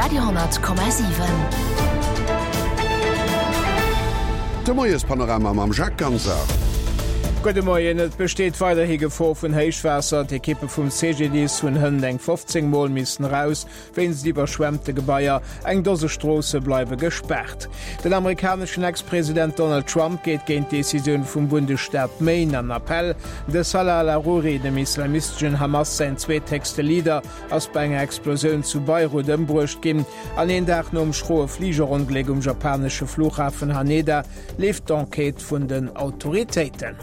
Radio 10,7. De Moiespanorama mam Jacques Ganser. Gudde Moien, Et besteet weiderhi Gefor vun Héichwaasser. D'Ekippe vum CGDIS hunn hënt eng 15 Mol missen eraus wéinst iwwerschwemmte Gebaier. Eng Dose Stroosse bleiwe gespaart. Den amerikaneschen Ex-President Donald Trump geet géint d'Decisioun vum Bundesstaat Maine an Appell. De Salah al-Aruri, dem islamisteschen Hamas säin zweethéchste Leader, ass bei enger Explosioun zu Beirut ëmbruecht ginn. An een Dag nom schroe Fligerongléck um japanesche Flughafen Haneda leeft d'Enquête vun den Autoritéiten.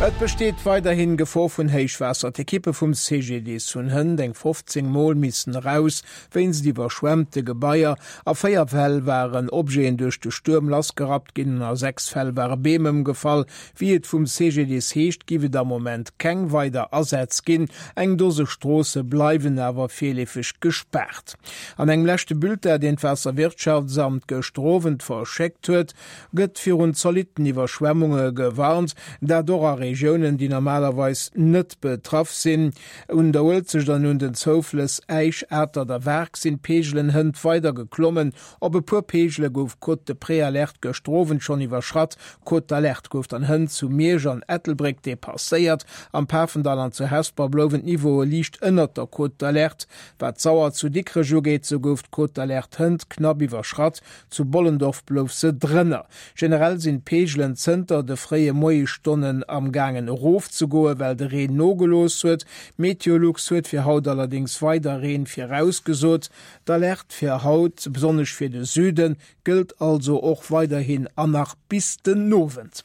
Et besteet weiderhin Gefor vun Héichwaasser. D'Ekippe vum CGDIS hunn hënt eng 15 Mol missen eraus wéinst iwwerschwemmte Gebaier. A 4 Fäll waren Objeten duerch de Stuerm lassgerappt ginn an a 6 Fäll ware Beem ëmgefall. Wéi et vum CGDIS heescht, giff et am Moment keng weider Asätz ginn. Eng Dose Stroosse bleiwen awer virleefeg gespaart. An engem leschte Bulletin, deen d'Waasserwirtschaftsamt gëschter Owend verschéckt huet, gëtt virun zolitten Iwwerschwemmunge gewarnt, dat och a Regiounen, déi normalerweis net betraff sinn. Un der Uelzecht an un den Zouflëss Äisch, Atert a Waark sinn d'Peegelen hënt weider geklommen. Op e puer Peegele gouf d'Cote de Préalerte gëschter Owend schonn iwwerschratt. D'Cote d'alerte gouf dann hënt zu Miersch an Ettelbréck depasséiert. Am Pafendall an zu Hesper blouwen d'Niveaue liicht ënnert der Cote d'alerte. Wat d'Sauer zu Dikrech ugeet, sou gouf d'Cote d'alerte hënt knapp iwwerschratt. Zu Bollendorf blouf se drënner. Generell sinn d'Peegelen zënter de fréie Moiesstonnen am gaangen erofzegoen, well de Reen nogelooss huet. Meteolux huet fir haut allerdéngs weider Reen virausgesot. D'Alerte fir haut, besonnesch fir de Süden, gëllt also och weiderhin an nach bis den Owend.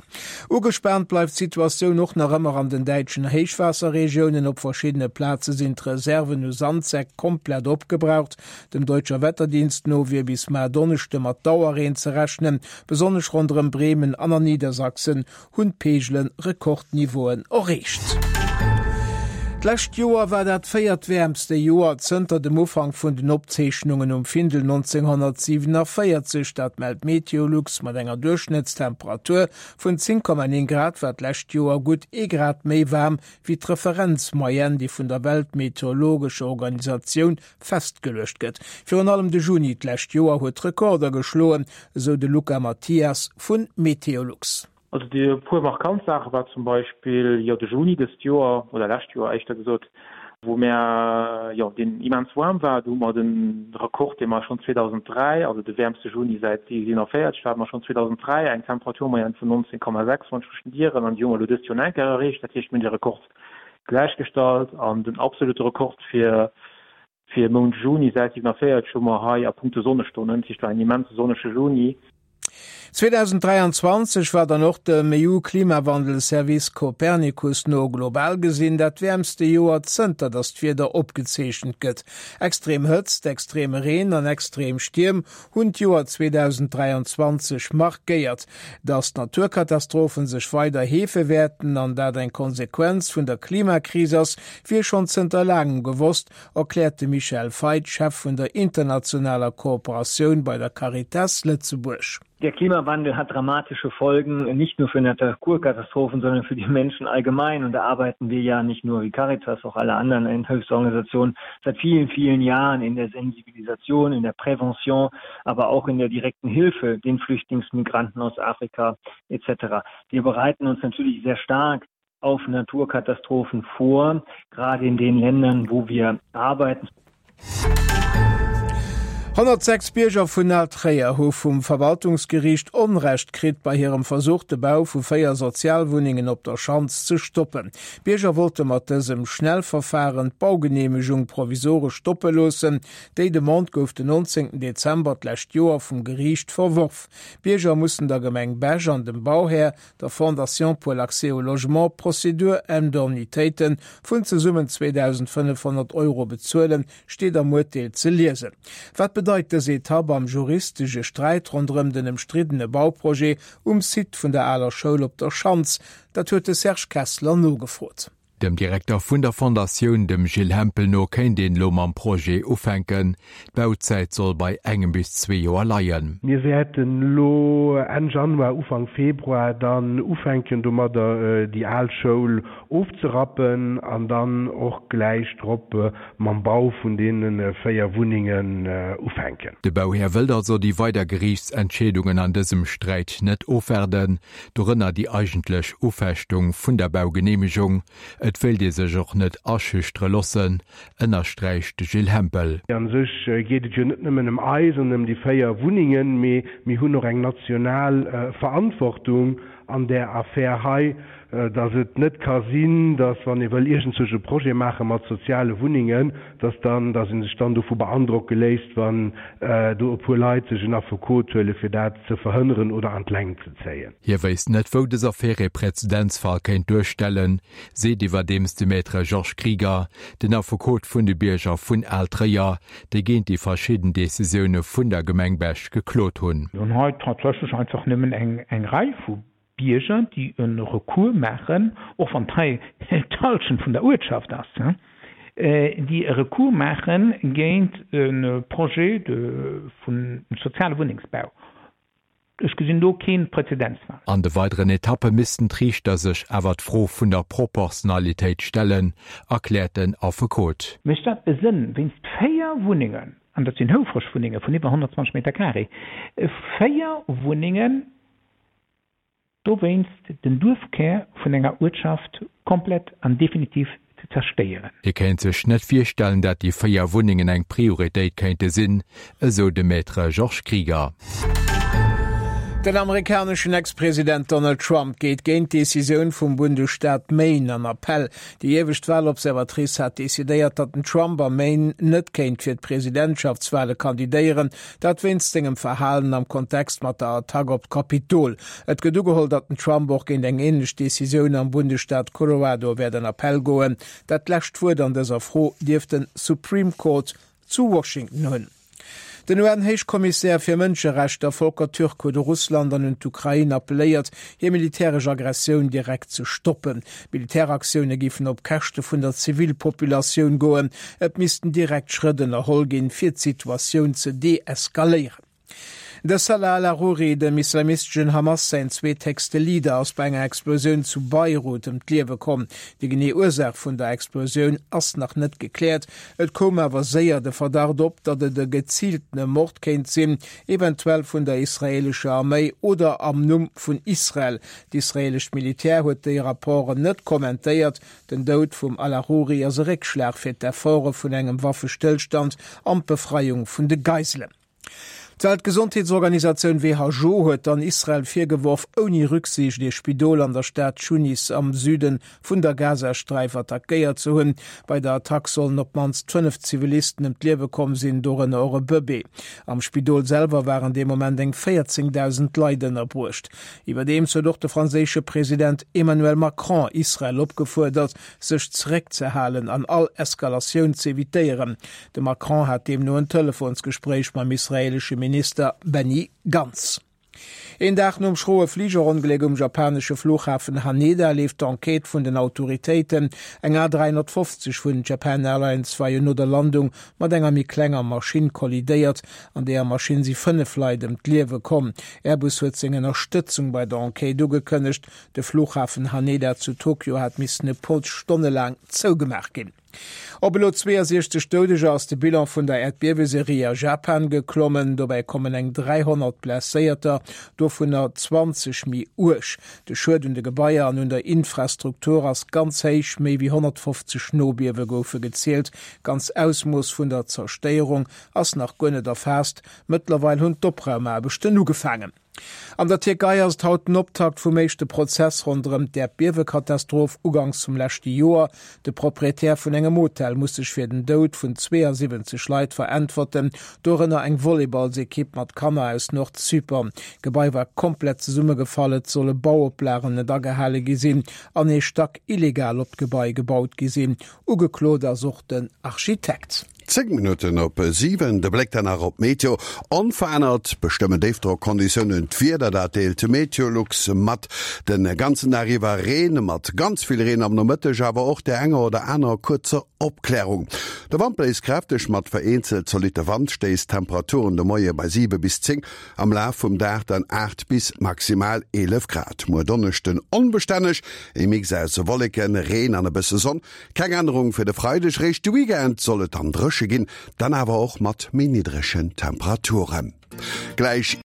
Ugespaant bleift d'Situatioun och nach ëmmer an den däitschen Héichwaasserregiounen. Op verschiddene Plaze sinn d'Reserven u Sandsäck komplett opgebraucht. Dem Deutscher Wetterdienst no wier bis mar Donneschde mat Dauerreen ze rechnen. Besonnesch ronderëm Bremen an an Niedersachsen hunn d'Peegele Rekordniveauen erreecht. D'lescht Joer war dat véiertwäermste Joer zënter dem Ufank vun den Opzeechnungen um Findel 1947. Dat mellt Meteolux. Mat enger Duerchschnëttstemperatur vun 10,9 Grad war d'lescht Joer gutt ee Grad méi waarm wéi d'Referenzmoyenne, déi vun der Weltmeteorologescher Organisatioun festgeluecht gëtt. Virun allem de Juni d'lescht Joer huet Rekorder geschloen, esou de Luca Mathias vu Meteolux. Also déi e puer markant Saache war zum Beispill jo de Juni dëst Joer, oder lescht Joer éischter gesot, wou mär, jo, deen immens waarm war. Do hu mer de Rekord, dee mer schonn 2003, also de wäermste Juni säit 47, do hate mer schonn 2003 eng Temperaturmoyenne vun 19,6, wann ech mech net ieren, an déi hu mer elo dëst Joer nach eng Kéier erreecht. Dat heescht, mir hunn de Rekord gläichgestallt an den absolute Rekord fir fir Mount Juni säit 47 hu mer hei a punkto Sonnestonnen. Dat heescht, war en immense sonnege Juni. 2023 war dann och dem EU-Klimawandelservice Copernicus no global gesinn dat wäermste Joer zënter datt d'Wieder opgezeechent gëtt. Extrem Hëtzt, extreme Reen an extrem Stierm hunn d'Joer 2023 markéiert. Datt d'Naturkatastrophen sech weider heefe wäerten an dat eng Konsequenz vun der Klimakris ass, wier schonn zënter laangem gewosst, erkläert de Michel Feit, Chef vun der internationaler Kooperatioun bei der Caritas Lëtzebuerg. Der Klimawandel hat dramatische Folgen, nicht nur für Naturkatastrophen, sondern für die Menschen allgemein. Und da arbeiten wir ja nicht nur wie Caritas, auch alle anderen Hilfsorganisationen seit vielen, vielen Jahren in der Sensibilisation, in der Prävention, aber auch in der direkten Hilfe den Flüchtlingsmigranten aus Afrika etc. Wir bereiten uns natürlich sehr stark auf Naturkatastrophen vor, gerade in den Ländern, wo wir arbeiten. 106 Bierger vun Al-Tréier hu vum Verwaltungsgeriicht Onrecht kritt bei hirem Versuch, de Bau vu 4 Sozialwunnengen op der Schanz ze stoppen. D'Bierger wollte mat dësem Schnellverfaren d'Baugeneemegung provisoresch stoppe loossen. Déi Demande gouf den 19 Dezember d'lescht Joer vum Geriicht verworf. D'Bierger mussen der Gemeng Bech an dem Bauhär, der Fondation pour l'accès au logement, Prozedur-Indemnitéite vun zesummen 2.500 Euro bezuelen, steet am Urteel ze liesen. Wat bedeit dës Etapp am juristesche Sträit ronderëm den ëmstriddene Bauprojet um Site vun der aler Schoul op der Schanz? Dat huet de Serge Kessler nogefrot. Dem Direkter vun der Fondatioun, dem Gilles Hempel no, kéint een elo mam Projet ufänken. D'Bauzäit soll bei engem bis zwee Joer leien. Mir wäerten elo Enn Januar, Ufank Februar dann ufänken domadder déi al Schoul ofzerappen an dann och gläich drop mam Bau vun deene 4 Wunnengen ufänken. De Bauhär wëllt also déi weider Geriichtsentscheedungen an dësem Sträit net ofwaarden, dorënner déi eigentlech Ufechtung vun der Baugeneemegung. Et wéilt ee sech och net aschüchtere loossen, ënnersträicht de Gilles Hempel. A sech geet et jo net nëmmen ëm eis an ëm déi 4 Wunnengen, mee mir hunn och eng national Verantwortung an där Affär hei, dass et net ka sinn, dass wann ee wëll iergendzwousch e Projet maache mat soziale Wunnengen, dass dann, dass ee sech dann dovu beandrocke léisst, wann do e puer Leit sech en Affekot huele fir dat ze verhënneren oder an d'Längt ze zéien. Hie wéisst net, wou dës Affär ee Präzedenzfall kéint duerstellen, seet iwwerdeems de Maître Georges Krieger, den Affekot vun de Bierger vun Al-Tréier, déi géint déi verschidden Decisioune vun der Gemeng Bech geklot hunn. Mir hunn hei tatsächlech einfach nëmmen eng Rei vu Bierger, déi e Recours maachen, och wann hei d'Hallschent vun der Uertschaft ass, déi e Recours maache géint e Projet vun soziale Wunnengsbau. Ech gesinn do kee Präzedenzfall. An de weideren Etappe missten d'Riichter sech awer d'Fro vun der Proportionalitéit stellen, erkläert den Affekot. Mécht dat e Sënn, wéinst 4 Wunnengen, an dat sinn houfreg Wunnenge vun iwwer 120 Meter carré, 4 Wunnengen dowéinst den Duerfkär vun enger Uertschaft komplett an definitiv ze zerstéieren. Hie kéint sech net virstellen, dat déi 4 Wunnengen eng Prioritéit kéinte sinn, esou de Maître Georges Krieger. Den amerikaneschen Ex-President Donald Trump geet géint d'Decisioun vum Bundesstaat Maine an Appell. Déi iewescht Walobservatrice hat decidéiert, datt den Trump am Maine net kéint fir d'Presidentschaftswale kandidéieren, Dat wéinst sengem Verhalen am Kontext mat der Attack op d'Kapitol. Et gëtt ugeholl, datt den Trump och géint eng änlech Decisioun am Bundesstaat Colorado wäert an Appell goen. Dat lescht Wuert an dëser Fro dierft den Supreme Court zu Washington hunn. Den UN-Héichkommissär fir Mënscherechter Volker Türk huet u Russland an un d'Ukrain appelléiert, hir militäresch Aggressioun direkt ze stoppen. Militäraktioune géifen op Käschte vun der Zivilpopulatioun goen. Et missten direkt Schrëtt ënnerholl ginn, fir d'Situatioun ze deeskaléieren. De Salah al-Aruri, dem islamisteschen Hamas säin zweethéchste Leader, ass bei enger Explosioun zu Beirut ëm d'Liewe komm. Déi genee Ursaach vun der Explosioun ass nach net gekläert. Et koum awer séier de Verdacht op, datt et e geziiltene Mord kéint sinn, eventuell vun der israeelescher Arméi oder am Numm vun Israel. D'israeelescht Militär huet déi Rapporten net kommentéiert. Den Doud vum Al-Aruri ass e Réckschlag fir d'Efforte vun engem Waffestëllstand an d'Befreiung vun de Geiselen. D'Weltgesondheetsorganisatioun who huet dann Israel virgeworf, ouni Rücksiicht ee Spidol an der Stad Tunis am Süde vun der Gazasträif attackéiert ze hunn. Bei der Attack sollen op d'mannst 5 Zivilisten ëm d'Liewe komm sinn, dorënner och e Bëbee. Am Spidol selwer waren dee Moment eng 14.000 Leit ënnerbruecht. Iwwerdeems huet och de franséische President Emmanuel Macron Israel opgefuerdert, sech zeréckzehalen an all Eskalatioun z'evitéieren. De Macron hat deemno en Telefonsgespréich mam israeelesche Minister Benny Gantz. Een Dag nom schroe Fligerongléck um japanesche Flughafen Haneda leeft d'Enquête vun den Autoritéiten. Eng A350 vun Japan Airlines war jo no der Landung mat enger méi klenger Maschinn kollidéiert. An deeër Maschinn si 5 Leit ëm d'Liewe komm. Airbus huet seng Ënnerstëtzung bei der Enquête ugekënnegt. De Flughafen Haneda zu Tokio hat missen e puer Stonne laang zougemaach ginn. Op elo 62 Doudeger ass de Bilan vun der Äerdbieweserie a Japan geklommen. Dobäi kommen eng 300 Blesséierter, dovunner 20 méi uerg. De Schued un de Gebaier an un der Infrastruktur ass ganz héich, méi wéi 150 Nobiewe goufe gezielt. D'ganz Ausmooss vun der Zerstéierung ass nach guer net erfaasst. Mëttlerweil hunn d'Opraumaarbechten ugefaangen. An der Tierkei ass et haut den Optakt vum éischte Prozess ronderëm d'Äerdbiewekatastroph uganks vum leschte Joer. De Proprietär vun engem Hotel muss sech fir den Doud vun 72 Leit veräntwerten, dorënner eng Volleyballsekipp mat Kanner aus Nordzypern. D'Gebai war komplett zesummegefall, et solle Bauoplagen net agehale gi sinn an ee Stack illegal op d'Gebai gebaut gi sinn. Ugeklot ass och den Architekt. 10 Minutten op 7, de Bléck dann nach op d'Meteo. Onverännert bestëmmen Déifdrockconditiounen d'Wieder, dat deelt Meteolux mat. De ganzen Dag iwwer Reen, mat ganz vill Reen am Nomëtteg, awer och där enger oder anerer kuerzer Opklärung. De Wand bléist kräfteg mat vereenzelt zolitte Wandstéiss, Temperaturen de Moie bei 7 bis 10, am Laf vum Dag dann 8 bis maximal 11 Grad. Muer Donneschden onbestänneg, e Mix aus Wolleken, Reen an e bësse Sonn. Keng Ännerung fir de Freideg, réischt de Weekend soll et dann dréche ginn, dann awer och mat méi niddregen Temperaturen. Gläich.